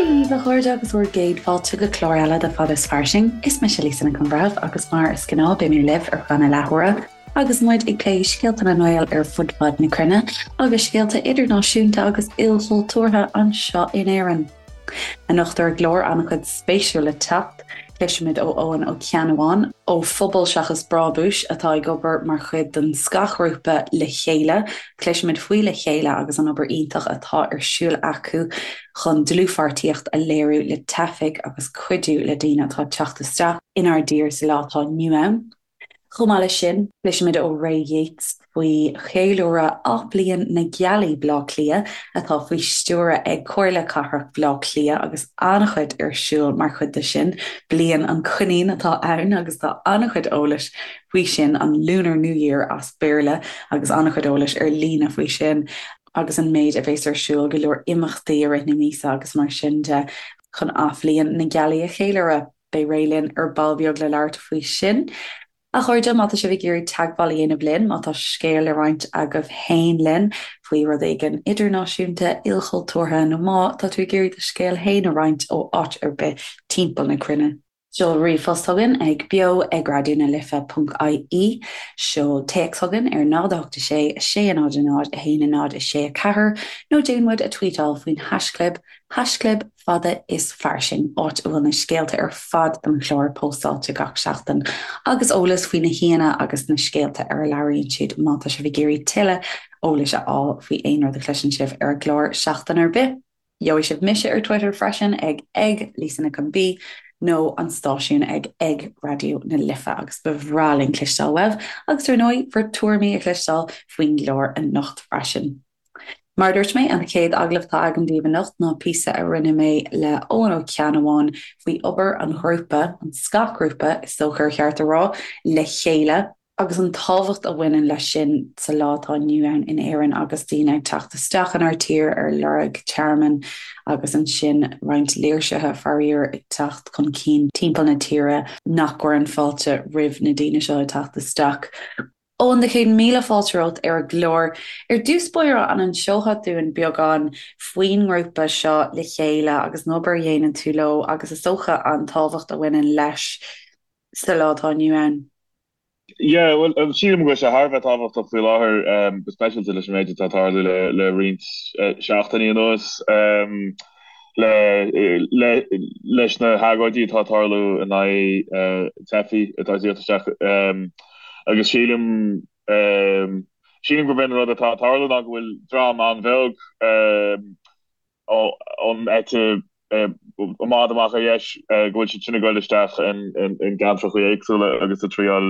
Dia daoibh, a chairde, agus bhur gcéad fáilte go clár eile de Fada is Fairsing. Is mise Lisa Nic an Bhreithimh agus mar is gnáth beidh mé libh ar feadh na leathuaire agus muid ag plé scéalta na nGael ar fud fad na cruinne agus scéalta idirnáisiúnta agus ilchultúrtha anseo in Éirinn. Anocht ar an gclár an-chuid spéisiúil le teacht. Cloisfimid ó Eoghan Ó Ceannabháin ó Phobal Seachas Brábúis atá ag obair mar chuid den scáthghrúpa Le Chéile. Cloisfimid faoi Le Chéile agus an obair iontach atá ar siúl acu chun dlúthpháirtíocht a léiriú le teifigh agus cuidiú le daoine atá ag teacht isteach inár dtír sa lá atá inniu ann. Chomh maith leis sin, cloisfimid ó Ray Yeates faoi cheiliúradh Athbhliain na Gealaí Baile Átha Cliath atá faoi stiúradh ag Comhairle Cathrach Bhaile Átha Cliath agus an-chuid ar siúl mar chuid de sin. Bliain an Coinín atá ann agus tá an-chuid eolais faoi sin, an Lunar New Year as Béarla, agus an-chuid eolais ar líne faoi sin agus an méid a bhéas ar siúl, go leor imeachtaí i rith na míosa agus mar sin de chun Athbhliain na Gealaí a cheiliúradh. Beidh Ray linn ar ball beag le labhairt faoi sin. A chairde, má tá sibh ag iarraidh teagmháil a dhéanamh linn, má tá scéal le roinnt agaibh féin linn faoi rud éigin idirnáisiúnta, ilchultúrtha nó má tá tú ag iarraidh do scéal féin a roinnt ó áit ar bith timpeall na cruinne, seol ríomhphost chugainn ag beo ag raidió na life ponc ie, seol téacs chugainn ar 0 8 6 6 0 0 1 0 6 4 nó déan muid a tweetáil faoin haischlib haischlib Fada is Fairsing, áit a bhfuil na scéalta ar fad don chlár póstáilte gach seachtain, agus eolas faoi na haíonna agus na scéalta ar a labhraíonn siad má tá sibh ag iarraidh tuilleadh eolais a fháil faoi aon rud a chloiseann sibh ar an gclár seachtain ar bith. Gheobhaidh sibh mise ar Twitter freisin ag ag Lisa Nic an B nó an stáisiún ag ag Raidió na Life agus ba bhreá linn cloisteáil uaibh agus ar ndóigh bhur tuairimí a chloisteáil faoin gclár anocht freisin. Mar a dúirt mé, an chéad agallamh atá agam daoibh anocht ná píosa a rinne mé le Eoghan Ó Ceannabháin faoi obair an ghrúpa, an scáthghrúpa is dócha ar cheart a rá, Le Chéile, agus an tábhacht a bhaineann leis sin sa lá atá inniu ann in Éirinn agus daoine ag teacht isteach inár tír ar lorg tearmainn agus ansin roinnt léirsithe, faraor, ag teacht chun cinn timpeall na tíre nach gcuireann fáilte roimh na daoine seo ag teacht isteach. Eoghan, do chéad míle fáilte romhat ar an gclár. Ar dtús báire, an inseofá dúinn beagán faoin ngrúpa seo Le Chéile agus an obair a dhéanann tú leo agus is dócha an tábhacht a bhaineann leis sa lá atá inniu ann? Yeah, bhuel, sílim go bhfuil sé thar a bheith tábhachtach faoi láthair, go speisialta leis an méid atá ag tarlú le roinnt seachtainí anuas, le leis na hagóidí atá ag tarlú in aghaidh teifigh atá ag tíocht isteach. Agus sílim, sílim gurb é an rud atá ag tarlú ná go bhfuil dream an-bheag ón eite i bhfad amach ar dheis, go bhfuil siad sin ag dul isteach in gceantracha éagsúla agus ag triáil,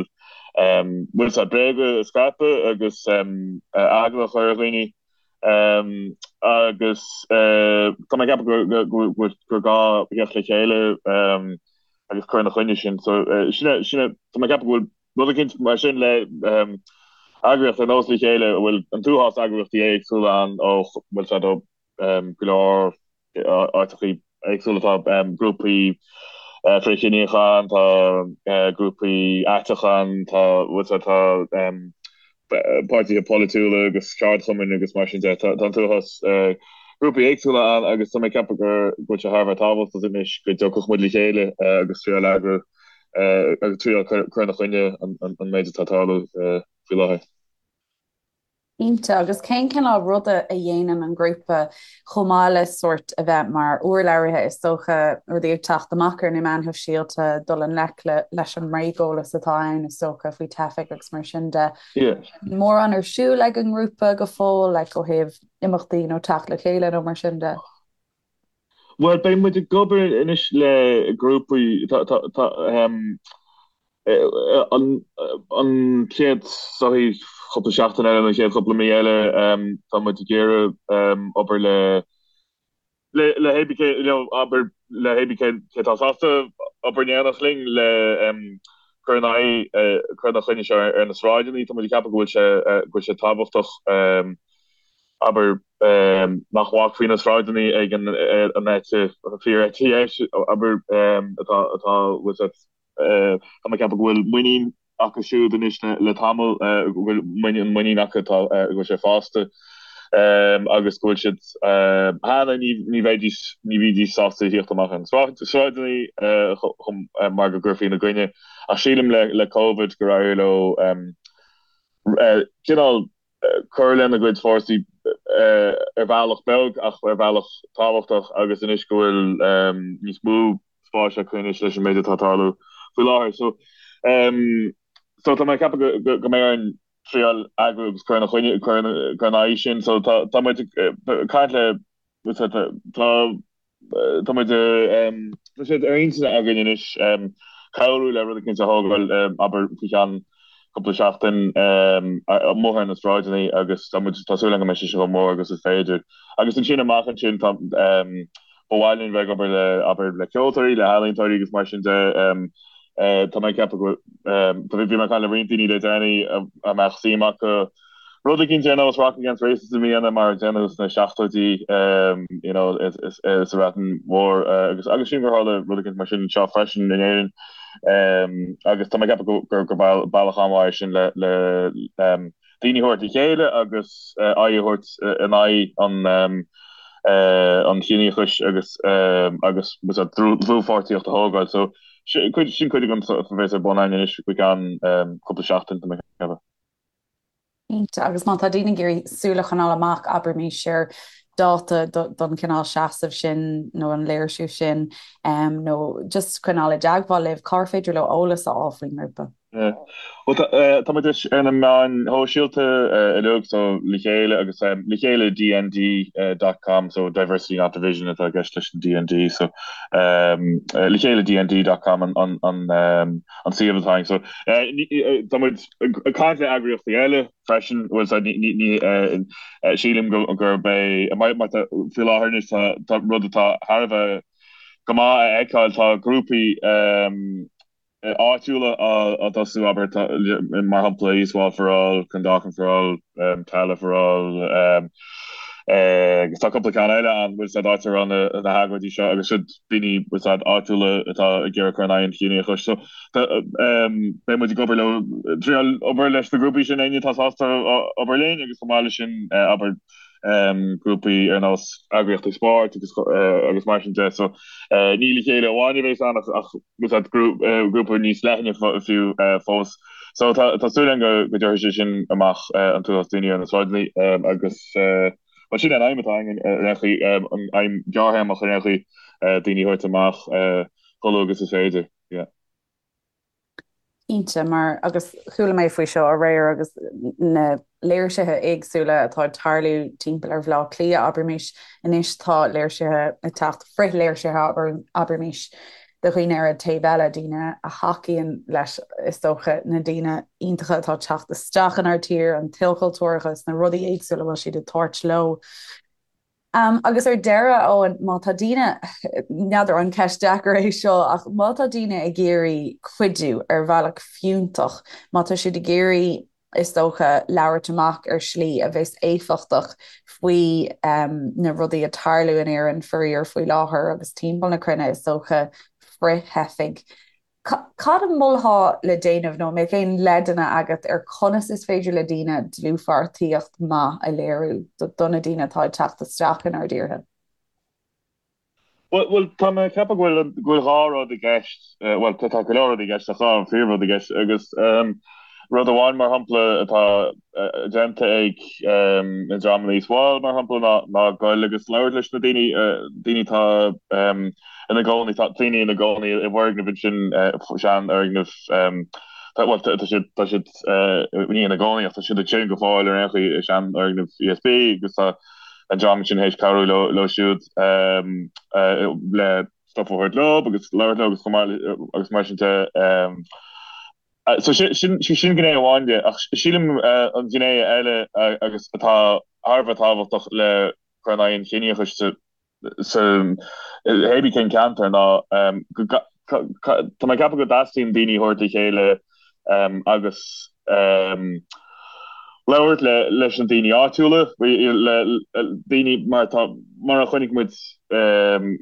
bhfuil a fhios agat, bréaga a scaipeadh agus eagla a chur ar dhaoine. Agus tá mé ag ceapadh gur gá theacht le chéile agus cur ina choinne sin. So sin é, sin é, tá mé ag ceapadh go bhfuil rud eicínt mar sin le eagraíocht ar nós Le Chéile a bhfuil an t-uafás eagraíochtaí éagsúla ann ó bhfuil a fhios agat ó go leor áiteachaí éagsúla tá grúpaí frithchiníocha ann, tá grúpaí aiteacha ann, tá bhfuil a fhios agat tá páirtithe polaitiúla agus ceardchumainn agus mar sin de. Tá an t-uafás grúpaí éagsúla ann agus tá mé ag ceapadh go bhfuil sé thar a bheith tábhachtach anois go dtiocfadh muid le chéile agus triáil eagrú agus triáil cur ina choinne an méid atá ag tarlú faoi láthair. Cinnte, agus cén cineál ruda a dhéanann an grúpa chomh maith le sórt a bheith mar urlabhraithe, is dócha, rudaí ag teacht amach ar na meáin shóisialta, dul i ngleic leis an mbréageolas atá ann, is dócha, faoi teifigh agus mar sin de. Mórán ar siúl ag an ngrúpa go fóill, like, ó thaobh imeachtaí nó teacht le chéile nó mar sin de? Bhuel, beidh muid ag obair anois le grúpaí, tá, tá, tá, an chéad sochaí cúpla seachtain eile nó an chéad chúpla mí eile, tá muid ag iarraidh obair le, le, le hébí cé, you know, abair le hébí cé, cé atá sásta obair in éineacht linn le cur in aghaidh, cur ina choinne seo ar na sráideanna. Tá muid ag ceapadh go bhfuil sé, go bhfuil sé tábhachtach, abair, nach bhfágfaí na sráideanna ag an eite, fíor-eite dheis, abair, atá, atá, bhfuil a fhios agat, tá mé ag ceapadh go bhfuil muinín acu siúd anois le tamall, go bhfuil muinín, an muinín acu atá, go bhfuil sé fásta. Agus go bhfuil siad cheana ní bheidís ní bhídís sásta theacht amach ar na sráideanna chun mar go gcuirfí ina gcoinne. Ach sílim le le Covid gur éirigh leo cineál cur lena gcuid fórsaí ar bhealach beag ach ar bhealach tábhachtach agus anois go bhfuil níos mó spáis acu anois leis an méid atá ag tarlú faoi láthair. So so tá mé ag ceapadh go go mbeidh orainn triail eagrú agus cur ina choinne, cur ina aghaidh sin. So tá tá muid ag caint le tá tá muid tá sé ar intinn againn anois cabhrú le rud eicínt a thógáil abair faoi cheann cúpla seachtain amuigh ar na sráideanna agus tá muid tá súil agam go mbeidh sé chomh mór agus is féidir. Agus ansin amach ansin tá ba mhaith linn bheith ag obair le abair le ceoltóirí, le healaíontóirí agus mar sin de. Tá mé ag ceapadh go bhí mé ag caint le roinnt daoine le déanaí a mbeadh suim acu rud eicínt ar nós Rock Against Racism a dhéanamh mar a déanadh sna seachtóidí you know sa Bhreatain Mhór agus agus sílim gur tharla rud eicínt mar sin anseo freisin in Éirinn agus tá mé ag ceapadh gur gur bealach an-mhaith é sin le le daoine a thabhairt le chéile agus aghaidh a thabhairt in aghaidh an an chiníochais agus agus dlúthpháirtíocht a thógáil. So sin cuid sin cuid den stuif a bheas ar bun againn anois faoi cheann cúpla seachtain, tá mé ag ceapadh. Cinnte, agus má tá daoine ag iarraidh súil a choinneáil amach, abraimis, ar dáta don chineál seasamh sin nó an léirsiú sin nó just coinneáil i dteagmháil libh, cár féidir leo eolas a fháil faoin ngrúpa? Bhuel tá muid ar na meáin shóisialta uilig so Le Chéile agus Le Chéile DND dot com so Diversity Not Division atá i gceist leis an DND so Le Chéile DND dot com an an an suíomh atá againn so tá muid ag caint le eagraíochtaí eile freisin bhuel so ní ní sílim go gurb é mar tá faoi láthair anois tá tá rud atá thar a bheith go maith a fheiceáil tá grúpaí áitiúla á dtosú, abair, mar shampla East Wall for All, Clondalkin for All, Tallaght for All, agus tá cúpla ceann eile ann, bhfuil 's a'd, áit a raibh na hagóidí seo agus siad daoine, bhfuil 's a'd, áitiúla atá ag iarraidh cur in aghaidh an chiníochais. So, beidh muid ag obair leo, triail obair leis na grúpaí sin, éinne atá sásta obair linn agus chomh maith leis sin, abair, grúpaí ar nós eagraíochtaí spóirt agus agus mar sin de. So, ní Le Chéile amháin a bheas ann ach bhfuil 's a'd grúpa níos leithne fiú fós. So tá tá súil againn go go dtabharfaidh sé sin amach an t-uafás daoine ar na sráideanna agus bhuel sin an aidhm atá againn ar aon chaoi, an aidhm ghearrthéarmach ar aon chaoi, daoine a thabhairt amach chomh luath agus is féidir. Yeah. Cinnte, mar, agus chuala mé faoi seo aréir agus na léirsithe éagsúla atá ag tarlú timpeall ar Bhaile Átha Cliath, abraimis, anois tá léirsithe ag teacht, frith-léirsithe, abraimis, de dhaoine ar an taobh eile, daoine a thacaíonn leis, is dócha, na daoine iontacha atá ag teacht isteach inár dtír, an t-ilchultúrachas, na rudaí éagsúla a bhfuil siad ag tabhairt leo. Agus ar deireadh, Eoin, má tá daoine, n'fheadar an ceist deacair é seo, ach má tá daoine ag iarraidh cuidiú ar bhealach fiúntach, má tá siad ag iarraidh, is dócha, labhairt amach ar shlí a bheas éifeachtach faoi na rudaí ag tarlú in Éirinn, faraor, faoi láthair agus timpeall na cruinne, is dócha, frith-theifigh, Cad a mholfá le déanamh nó an mbeadh aon leideanna agat ar conas is féidir le daoine dlúthpháirtíocht maith a léiriú do na daoine atá ag teacht isteach inár dtíortha? Bhuel, tá mé ag ceapadh go bhfuil go bhfuil dhá rud i gceist, bhuel, tá go leor rudaí i gceist ach dhá phríomhrud i gceist agus rud amháin mar shampla atá déanta ag na dreamanna East Wall mar shampla ná ná goil agus labhairt leis na daoine, daoine atá ina gcónaí, tá daoine ina gcónaí i bhfoirgneamh ansin, seanfhoirgneamh, tá, bhuel, tá siad, tá siad, ní ina gcónaí ach tá siad ansin go fóill ar aon chaoi i seanfhoirgneamh ESB agus tá an dream sin théis cabhrú leo, leo siúd le stuff a thabhairt leo agus labhairt leo agus chomh maith le, agus mar sin de. So sin, sin, sin gné amháin de ach sílim an ghné eile agus atá thar a bheith tábhachtach le cur in aghaidh an chiníochais sa sa hébí cén ceantar ná go tá mé ag ceapadh go dteastaíonn daoine a thabhairt le chéile agus labhairt le leis na daoine áitiúla, le daoine mar tá mar a chonaic muid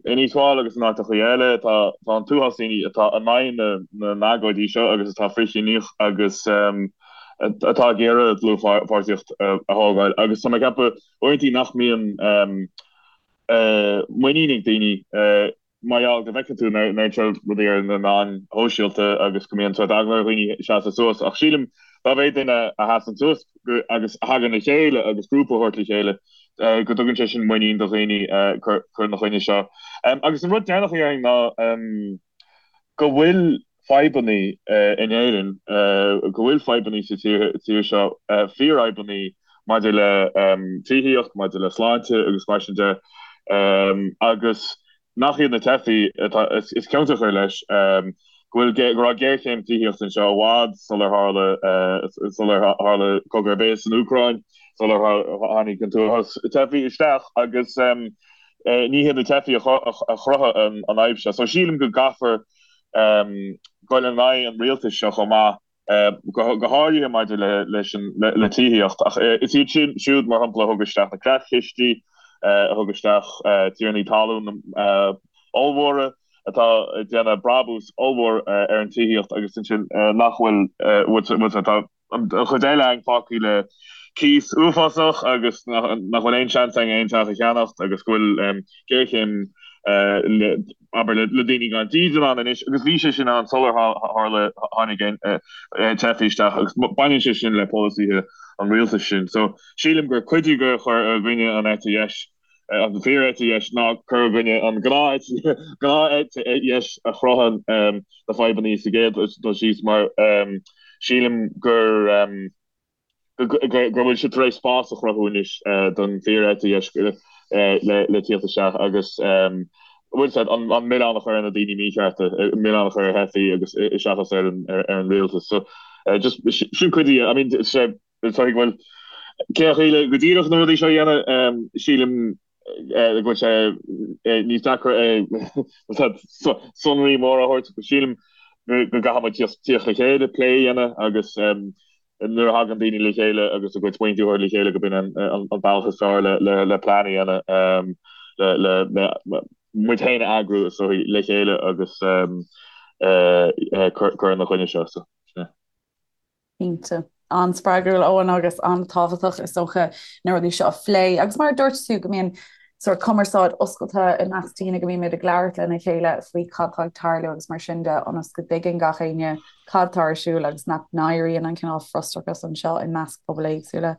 in East Wall agus in áiteachaí eile tá tá an t-uafás daoine atá in aghaidh na na n-agóidí seo agus atá frithchiníoch agus. atá ag iarraidh dlúthpháirtíocht a thógáil agus tá mé ag ceapadh uaireanta nach mbíonn muinín ag daoine mar gheall go bhfeiceann tú na rudaí ar na meáin shóisialta agus go mbíonn sórt eagla ar dhaoine seasamh suas ach sílim dá mhéad duine a sheasann suas agus a thagann le chéile agus grúpa a thabhairt le chéile go dtugann sé sin muinín do dhaoine cur ina choinne seo. Agus an rud deireanach a dhéarfainn ná go bhfuil fadhbanna in Éirinn, go bhfuil fadhbanna sa tír seo, fíorfhadhbanna maidir le tithíocht, maidir le sláinte agus mar sin de, agus nach iad na teifigh atá is ciontach leis, go bhfuil, go raibh géarchéim tithíochta anseo i bhfad sular tharla, sular tharla cogadh ar bith san Úcráin, sular tháinig an t-uafás teifigh isteach agus ní hiad na teifigh a chruthaigh an fhadhb seo. So sílim go gcaithfear dul in aghaidh an rialtais seo chomh maith, go háirithe maidir leis an le tithíocht. Ach is iad sin siúd, mar shampla, a thug isteach na creatchistí, a thug isteach tiarnaí talún ollmhóra atá ag déanamh brabús ollmhór ar an tithíocht agus ansin nach bhfuil, tá an chuid eile againn fágtha le cíos uafásach agus nach bhfuil aon seans againn aon teach a cheannacht agus go bhfuil géarchéim abair le daoine gan dídean ann anois agus bhí sé sin ann sular tharla tháinig teifigh isteach agus baineann sé sin le polasaithe an rialtais sin. So sílim gur cuid de chur i gcoinne an eite dheis an fíor-eite dheis ná cur i gcoinne an gnáth-eite dheis a chruthaíonn na fadhbanna sa gcéad dul síos mar sílim gur go bhfuil siad tar éis spás a chruthú anois don fíor-eite dheis le tíocht isteach agus bhfuil siad an milleán a chur ar na daoine míchearta, milleán a chur ar theifigh agus seachas ar an rialtas. So just sin cuid de, I mean sé Is dóigh go bhfuil cén chaoi le go díreach na rudaí seo a dhéanamh, sílim go bhfuil sé níos deacra sonraí móra a thabhairt, sílim go gcaithfidh muid tíocht le chéile, plé a dhéanamh agus nuair a thagann daoine le chéile agus a gcuid smaointe a thabhairt le chéile go b'in an bealach is fearr le plean a dhéanamh le muid féin a eagrú is dóigh le chéile agus cur ina choinne seo. Cinnte. An-spreagúil, Eoin, agus an-tábhachtach, is dócha, na rudaí seo a phlé. Agus mar a dúirt tú, go mbíonn sórt cumarsáid oscailte i measc daoine, go mbímid ag labhairt lena chéile faoi cad tá ag tarlú agus mar sin de, ionas go dtuigeann gach éinne cad tá ar siúl agus nach n-éiríonn an cineál frustrachas anseo i measc pobail éagsúla.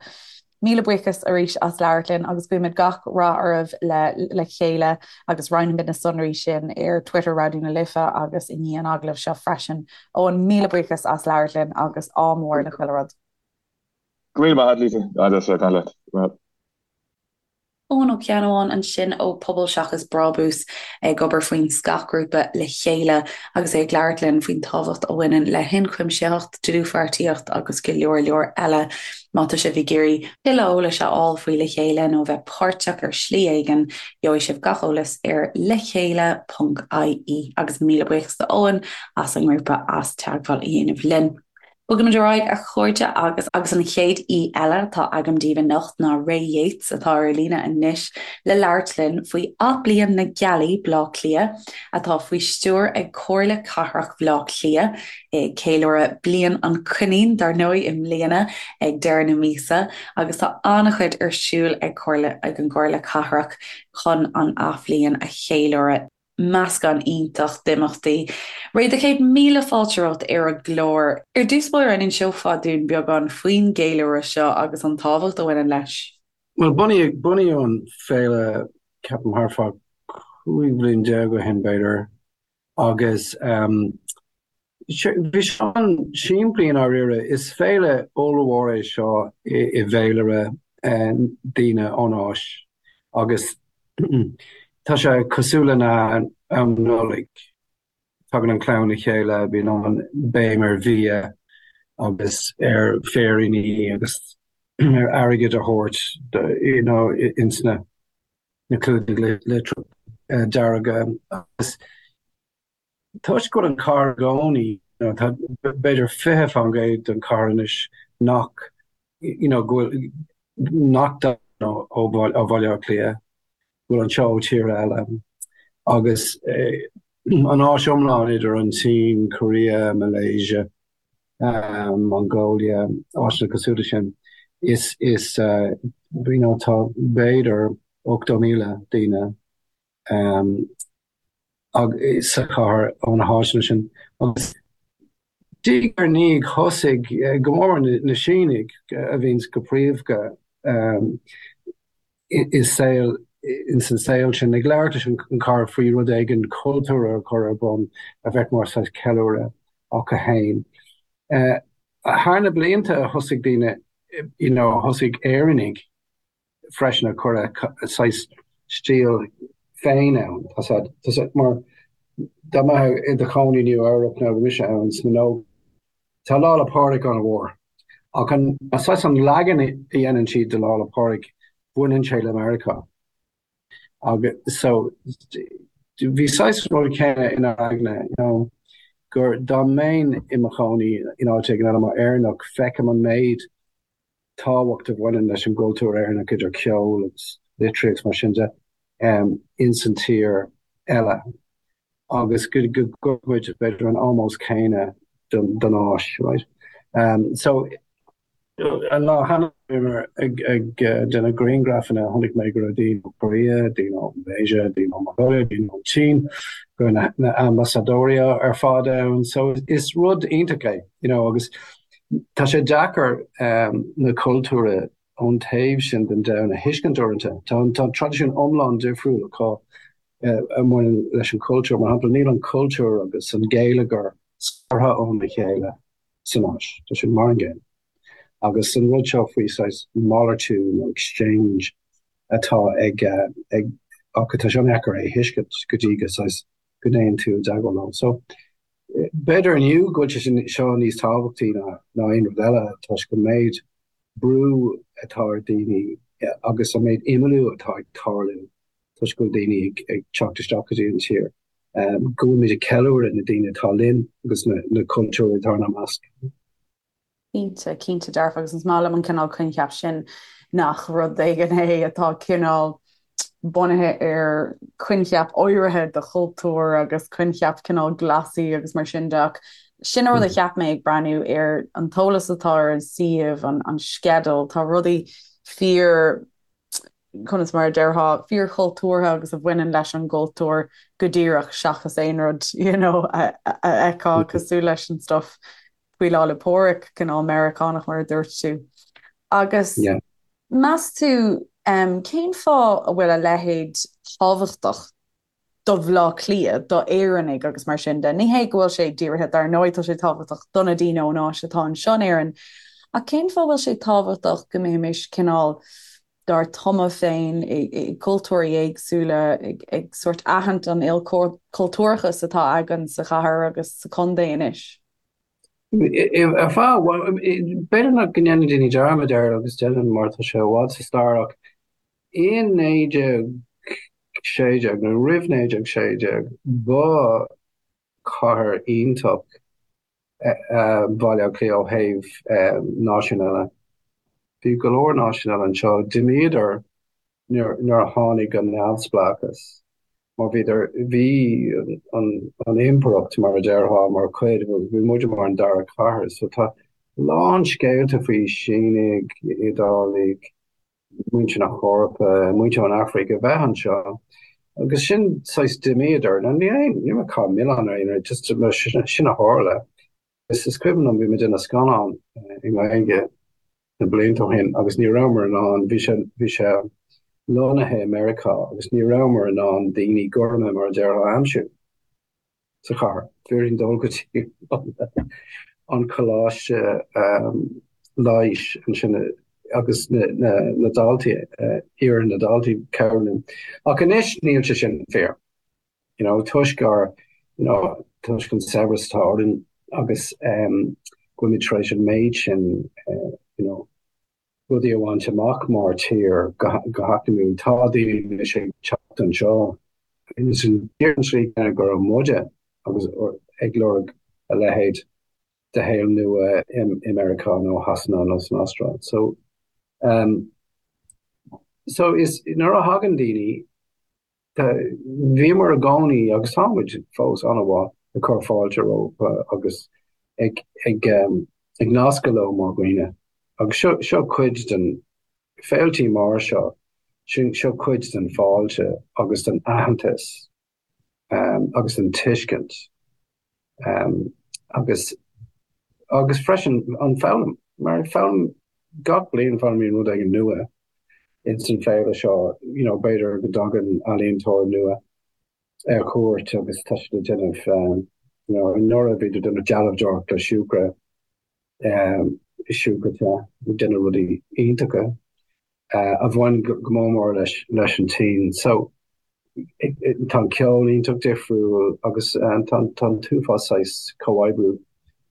Míle buíochas arís as labhairt linn agus guímid gach rath oraibh le Le Chéile agus roinnfimid na sonraí sin ar Twitter Raidió na Life agus i ndiaidh an agallaimh seo freisin. Eoin, míle buíochas as labhairt linn agus ádh mór le chuile rud. Go raibh míle maith agat, Lisa. An-deas a bheith ag caint leat. Go raibh maith. Eoin Ó Ceannabháin ansin ó Pobal Seachas Brabús ag obair faoin scáthghrúpa Le Chéile agus é ag labhairt linn faoin tábhacht a bhaineann le hionchuimsitheacht, dlúthpháirtíocht agus go leor leor eile. Má tá sibh ag iarraidh tuilleadh eolais a fháil faoi Le Chéile nó bheith páirteach ar shlí éigin, gheobhaidh sibh gach eolas ar lechéile.ie agus míle buíochas do Eoin as an ngrúpa as teagmháil a dhéanamh linn. Bogaimid ar aghaidh, a chairde, agus agus an chéad aoi eile atá agam daoibh anocht ná Ray Yeates, atá ar líne anois le labhairt linn faoi Athbhliain na Gealaí, Baile Átha Cliath, atá faoi stiúir ag Comhairle Cathrach Bhaile Átha Cliath, ag ceiliúradh Bliain an Choinín, dar ndóigh, i mbliana ag deireadh na míosa, agus tá an-chuid ar siúl ag Comhairle ag an gComhairle Cathrach chun an Athbhliain a cheiliúradh. Meascán iontach d'imeachtaí. Ray, do chéad míle fáilte romhat ar an gclár. Ar dtús báire, an inseofá dúinn beagán faoin gceiliúradh seo agus an tábhacht a bhaineann leis? Bhuel, bunaíodh, bunaíodh an féile, ceapaim, thart fá 15 bhliain ó shin, b'fhéidir, agus bhí sé an-simplí i ndáiríre. Is féile ollmhór é seo i bhféilire daoine ón Áis agus tá sé cosúil lena am Nollaig. Tagann an chlann le chéile, bíonn an béim ar bhia agus ar féiríní agus ar airgead a thabhairt you know ins na clúdaigh litreach dearga agus Toisc go bhfuil an chathair i gcónaí, you know, tá b'fhéidir 20% den chathair anois nach, you know, go bhfuil, nach dtagann ó Bhaile Átha Cliath, go bhfuil anseo ó tíortha eile. Agus an Áis iomlán idir an tSín, Korea, Malaysia. Mongolia, áiteanna cosúil leis sin, is, is, you know, tá b'fhéidir 80,000 daoine sa chathair ó na háiteanna sin. Agus diaidh ar ndiaidh thosaigh go mór mór na Sínigh a bhíonns go príomha i saol ins an saol sin ag labhairt leis an chathair faoi rud éigin cultúrtha a chur ar bun a bheadh mar saghas ceiliúradh acu féin. Thar na blianta thosaigh daoine you know thosaigh Éireannaigh freisin ag cur a saghas stíl féin ann. Tá sé, tá sé mar dá mbeifeá i do chónaí i Nua Eabhrac nó bhí mise ann sna nó tá Lá 'le Pádraig an-mhór. Ach an saghas an leagan a dhéanann siad de Lá 'le Pádraig baineann sé le Meiriceá. Agus so bhí saghas rud céanna inár aigne, you know, gur dá mbeinn i mo chónaí in áit éigin eile mar Éireannach feicim an méid tábhacht a bhaineann leis an gcultúr Éireannach idir ceol agus litríocht mar sin de ins an tír eile agus go gcuirfeadh muid b'fhéidir an ómós céanna don áis, right? So an lá cheana bhíomar ag ag déanamh grianghrafanna chonaic mé go raibh daoine ó Korea, daoine ó Malaysia, daoine ó Mongolia, daoine ón tSín, go raibh na ambasadóirí ar fad ann so is rud iontach é, you know, agus Tá sé deacair na cultúir ón taobh sin den domhan a thuiscint uaireanta. Tá tá traidisiún iomlán difriúil acu a bhaineann leis an chultúr. Mar shampla, níl an cultúr agus an geilleagar scartha óna chéile san Áis. Tá sé mar an gcéanna. Agus an rud seo faoi saghas malartú nó exchange atá ag ag acu, tá sé an-deacair é a thuiscint go dtí go saghas go dtéann tú i dteagmháil leo. So, B'fhéidir inniu go bhfuil sé seo níos tábhachtaí ná aon rud eile toisc an méid brú atá ar daoine agus an méid imeallú atá ag tarlú toisc go bhfuil daoine ag teacht isteach go dtí an tír, go bhfuilimid ag ceiliúradh na daoine atá linn agus na cultúir atá inár measc. Cinnte, cinnte dearfa agus is maith liom an cineál coincheap sin nach rud éigin é atá cineál bunaithe ar coincheap áirithe de chultúr agus coincheap cineál Glasaí agus mar sin de ach sin an rud a cheap mé ag breathnú ar an t-eolas atá ar an suíomh, an, an sceideal, tá rudaí fíor conas mar a déarfá, fíorchultúrtha agus a bhaineann leis an gcultúr go díreach seachas aon rud you know, a fheiceá cosúil leis an stuff faoi Lá 'le Pádraig, cineál Meiriceánach mar a dúirt tú. Agus yeah. meas tú um, cén fáth a bhfuil a leithéid tábhachtach do Bhaile Átha Cliath, do Éireannaigh agus mar sin de. Ní hé go bhfuil sé dírithe, dar ndóigh tá sé tábhachtach do na daoine ón Áis atá anseo in Éirinn, ach cén fáth a bhfuil sé tábhachtach go mbeimis cineál dár dtumadh féin i gcultúirí éagsúla, ag sórt aithint an ilchultúrachas atá againn sa chathair agus sa chontae anois? Ar feadh, b'fhéidir nach go ndéanann daoine dearmad air agus déanann mar tá sé i bhfad sa stair ach In 1916, nó roimh 1916, ba chathair iontach Baile Átha Cliath ó thaobh náisiún eile. Bhí go leor náisiún eile anseo. D'imíodar nuair a tháinig an neamhspleáchas, mar bhíodar, bhí an impireacht, mar a déarfá, mar chuid, bhí muide mar an dara cathair. So tá a lán scéalta faoi Sínigh, Iodálaigh, muintir na hEorpa, muintir ón Afraic a bheith anseo agus sin saghas d'imíodar. Now ní aon, ní raibh caitheamh milleáin ar aon rud, just sin a tharla. Is is cuimhin liom bhí muid ag déanamh scannán i nGaeilge na blianta ó shin agus ní rabhamar in ann, bhí sé, bhí sé lonnaithe i Meiriceá agus ní rabhamar in ann daoine gorma mar a déarfá a aimsiú. sa chathair. Bhí orainn dul go dtí an coláiste leighis ansin agus na daltaí, iarraidh na daltaí cabhrú linn. Ach anois níl sé sin fíor. You know, toisc ár, you know, toisc an saibhreas atá orainn agus go bhfuilimid tar éis an méid sin, you know, rudaí a bhaint amach mar tír go heacnamúil. Tá daoine anois ag teacht anseo ins an tslí chéanna go raibh muide agus ag lorg a leithéid de shaol nua i Meiriceá nó Shasana nó san Astráil. So, um, so is nuair a thagann daoine Bhíomar i gcónaí, agus táimid fós, an-mhaith ag cur fáilte rompu agus ag ag ag nascadh leo mar dhaoine. Agus seo seo cuid den féiltí mar seo, sin seo cuid den fáilte agus den aitheantas agus den tuiscint agus agus freisin an foghlaim, mar foghlaim gach bliain foghlaimíonn rud éigin nua ins an féile seo, you know, b'fhéidir go dtagann ealaíontóir nua ar cuairt agus tá siad ag déanamh, you know, anuraidh bhíodar ag déanamh dealbhdóireacht le siúcra, siúcra te, ag déanamh rudaí iontacha a bhain go mór mór leis leis an tSín. So tá an ceol iontach difriúil agus tá tá an t-uafás saghas comhoibriú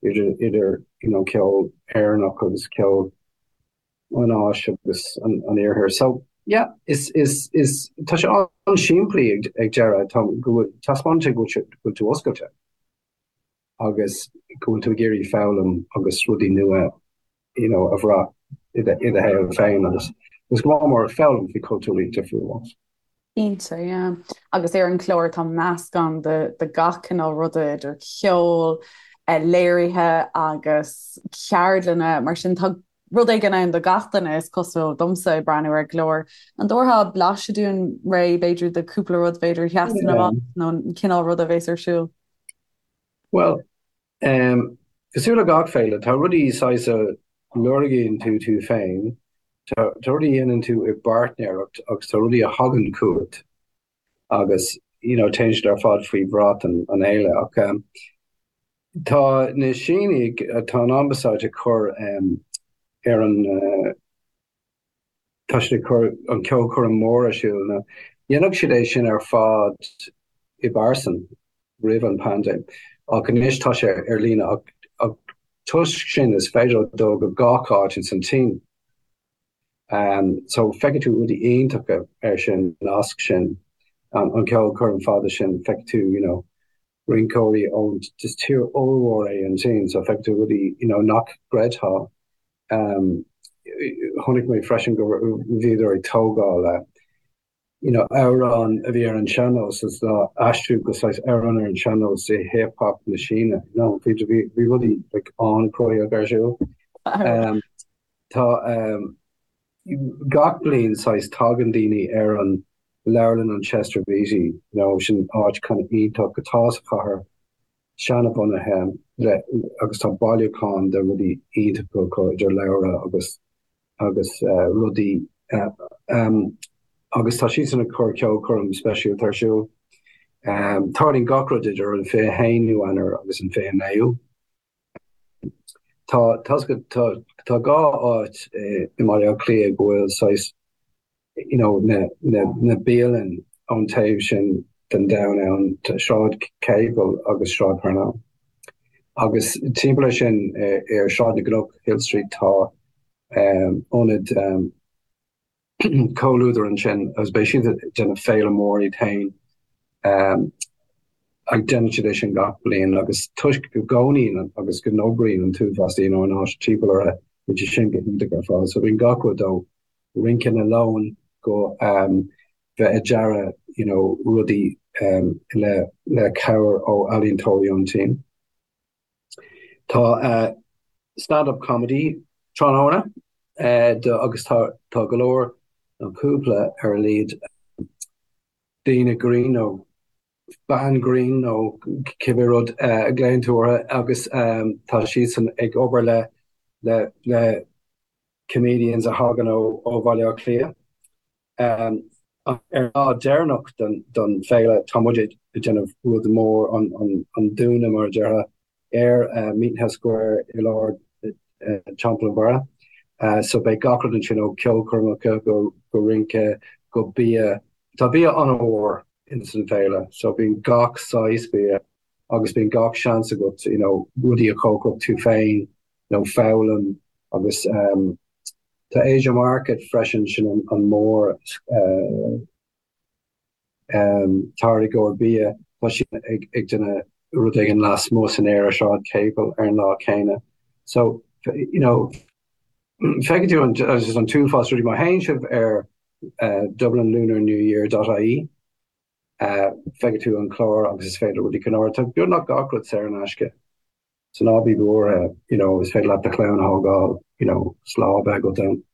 idir idir you know ceol Éireannach agus ceol an Áis agus an Iarthair. So, yeah, is, is, is, tá sé an-simplí ag, ag deireadh, tá, go bhfuil, taispeánann sé go bhfuil, go bhfuil tú oscailte agus go bhfuil tú ag iarraidh foghlaim agus rudaí nua, you know, a bhrath i do, i do shaol féin agus, agus go mór mór foghlaim faoi cultúirí difriúla. Cinnte, yeah. Agus ar an chlár tá meascán de, de gach cineál ruda idir cheol, léirithe agus ceardlanna, mar sin tá rud éigin ann do gach duine, is cosúil domsa ag breathnú ar an gclár. An dtabharfá blaiseadh dúinn, Ray, b'fhéidir de cúpla rud b'fhéidir a sheasann amach nó an cineál ruda a bhéas ar siúl? Bhuel, cosúil le gach féile, tá rudaí saghas a lorgaíonn tú tú féin, tá rudaí a dhéanann tú i bpáirtnéireacht agus tá rudaí a thagann chugat agus you know téann siad ar fad faoi bhrat an fhéile. Ach tá na Sínigh, tá an ambasáid ag cur ar an, tá siad ag cur an ceolchoirm mór ar siúl. Now dhéanfadh siad é sin ar fad i bpearsan roimh an paindéim ach anois tá sé ar líne ach ach toisc sin is féidir leo dul go gach áit ins an tSín. So feicfidh tú rudaí iontacha ar sin, nasc sin, an an ceolchoirm fada sin, feicfidh tú you know rinceoirí ón, is tír ollmhór é an tSín so feicfidh tú rudaí you know nach gcreidfeá. Chonaic mé freisin go bhíodar ag tógáil you know amhrán a bhí ar an sean-nós is á aistriú go saghas amhrán ar an sean-nós i hip hop na Síne you know bhí bhí bhí rudaí like an-chruthaitheach ar siúl. Tá gach bliain saghas tagann daoine ar an leabharlann an Chester Beatty you know sin áit kind of iontach atá sa chathair seanbhunaithe le agus tá bailiúchán de rudaí iontacha acu idir leabhra agus agus rudaí agus tá siadsan ag cur ceolchoirm speisialta ar siúl. Tarlaíonn gach rud idir an 21ú Eanáir agus an 29ú. Tá tá tá dhá áit i mBaile Átha Cliath go bhfuil saghas you know, na, na, na bialann ón taobh sin den domhan ann, Sráid Capel agus Sráid Parnell. Agus timpeall air sin ar Sráid na gCnoc, Hill Street, tá um, ionad um, Comhluadar ansin agus beidh siad ag déanamh féile mór iad féin. Um, ag déanann siad é sin gach bliain agus toisc go gcónaíonn agus go n-oibríonn an t-uafás daoine ón áit timpeall orthu, bíonn sé sin go hiontach ar fad. So bíonn gach rud ó rince na leon go bheith ag dearadh you know rudaí le le cabhair ó ealaíontóirí ón tSín. Tá stand up comedy tráthnóna agus tá tá go leor nó cúpla ar a laghad daoine grinn nó bean grinn nó cibé rud a ghlaonn tú orthu agus tá siadsan ag obair le le le comedians a thagann ó Bhaile Átha Cliath. Ar an lá deireanach den féile, tá muid ag déanamh rud mór, an dúnadh mar a déarfá, ar Meeting House Square i lár Teampall an Bharraigh. So beidh gach rud ansin ó ceolchoirmeacha go rince go bia. Tá bia an-mhór ins an féile, so bíonn gach saghas bia agus bíonn gach seans agat you know rudaí a chócaireacht tú féin nó foghlaim agus tá Asia Market freisin, sin an mór táirgeoir bia, tá siad ag ag déanamh rud éigin lasmuigh san aer ar Sráid Capel ar an lá céanna. So you know feicfidh tú an an t-uafás rudaí má théann sibh ar dublinlunarnewyear dot ie feicfidh tú an clár agus is féidir rudaí cineál tá beagnach gach rud saor in aisce. So ná bí buartha, you know, is féidir leat do chlann a thógáil, you know, 's lá a bheith agat ann.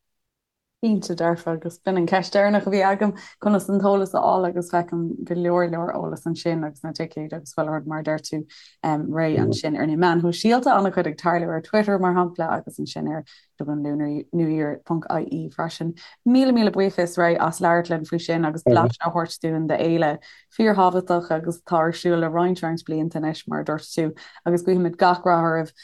Cinnte dearfa, agus b'in an ceist deireanach a bhí agam, conas an t-eolas a fháil agus feicim go leor leor eolas ansin agus na ticéid agus chuile rud mar a deir tú réidh ansin ar na meáin shóisialta, an-chuid ag tarlú ar Twitter mar shampla agus ansin ar dublinlunarnewyear ponc ie freisin. Míle míle buíochas Ray as labhairt linn faoi sin agus blaiseadh a thabhairt dúinn d'fhéile fíorthábhachtach agus atá ar siúl le roinnt roinnt blianta anois mar a dúirt tú agus guímid gach rath oraibh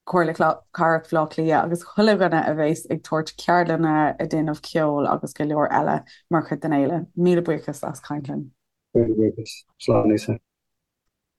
Comhairle Cathrach Bhaile Átha Cliath agus chuile dhuine a bheas ag tabhairt ceardlanna, ag déanamh ceoil agus go leor eile mar chuid den fhéile. Míle buíochas as caint linn. Míle buíochas. Slán Lisa.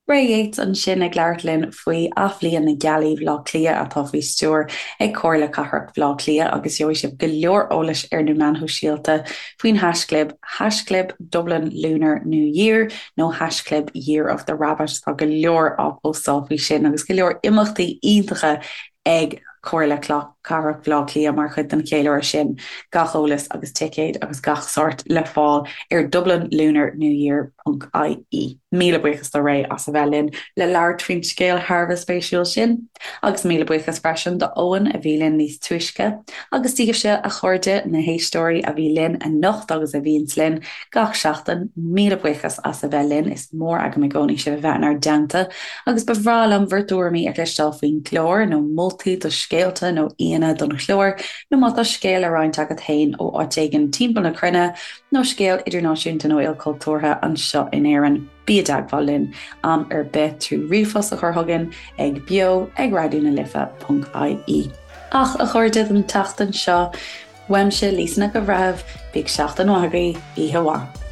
Ray Yeates ansin ag labhairt linn faoi Athbhliain na Gealaí Bhaile Átha Cliath atá faoi stiúir ag Comhairle Cathrach Bhaile Átha Cliath agus gheobhaidh sibh go leor eolais ar na meáin shóisialta faoin haischlib haischlib Dublin Lunar New Year nó haischlib Year of the Rabbit. Tá go leor á phóstáil faoi sin agus go leor imeachtaí iontacha ag Comhairle Cathrach Bhaile Átha Cliath mar chuid den cheiliúradh sin. Gach eolas agus ticéid agus gach sórt le fáil ar dublinlunarnewyear ponc ie. Míle buíochas do Ray as a bheith linn le labhairt faoin scéal thar a bheith spéisiúil sin. Agus míle buíochas freisin do Eoin a bhí linn níos túisce, agus daoibhse, a chairde, na héisteoirí a bhí linn anocht agus a bhíonns linn gach seachtain, míle buíochas as a bheith linn, is mór agam i gcónaí sibh a bheith inár dteannta, agus ba bhreá liom bhur dtuairimí a chloisteáil faoin gclár, nó moltaí do scéalta nó aíonna don chlár, nó má tá scéal le roinnt agat féin ó áit éigin timpeall na cruinne, nó scéal idirnáisiúnta nó ilchultúrtha anseo in Éirinn. Bí i dteagmháil linn am ar bith trí ríomhphost a chur chugainn ag beo ag raidió na life ponc ie. Ach, a chairde, don tseachtain seo, uaimse, Lisa Nic an Bhreithimh, bíodh seachtain mhaith agaibh, oíche mhaith.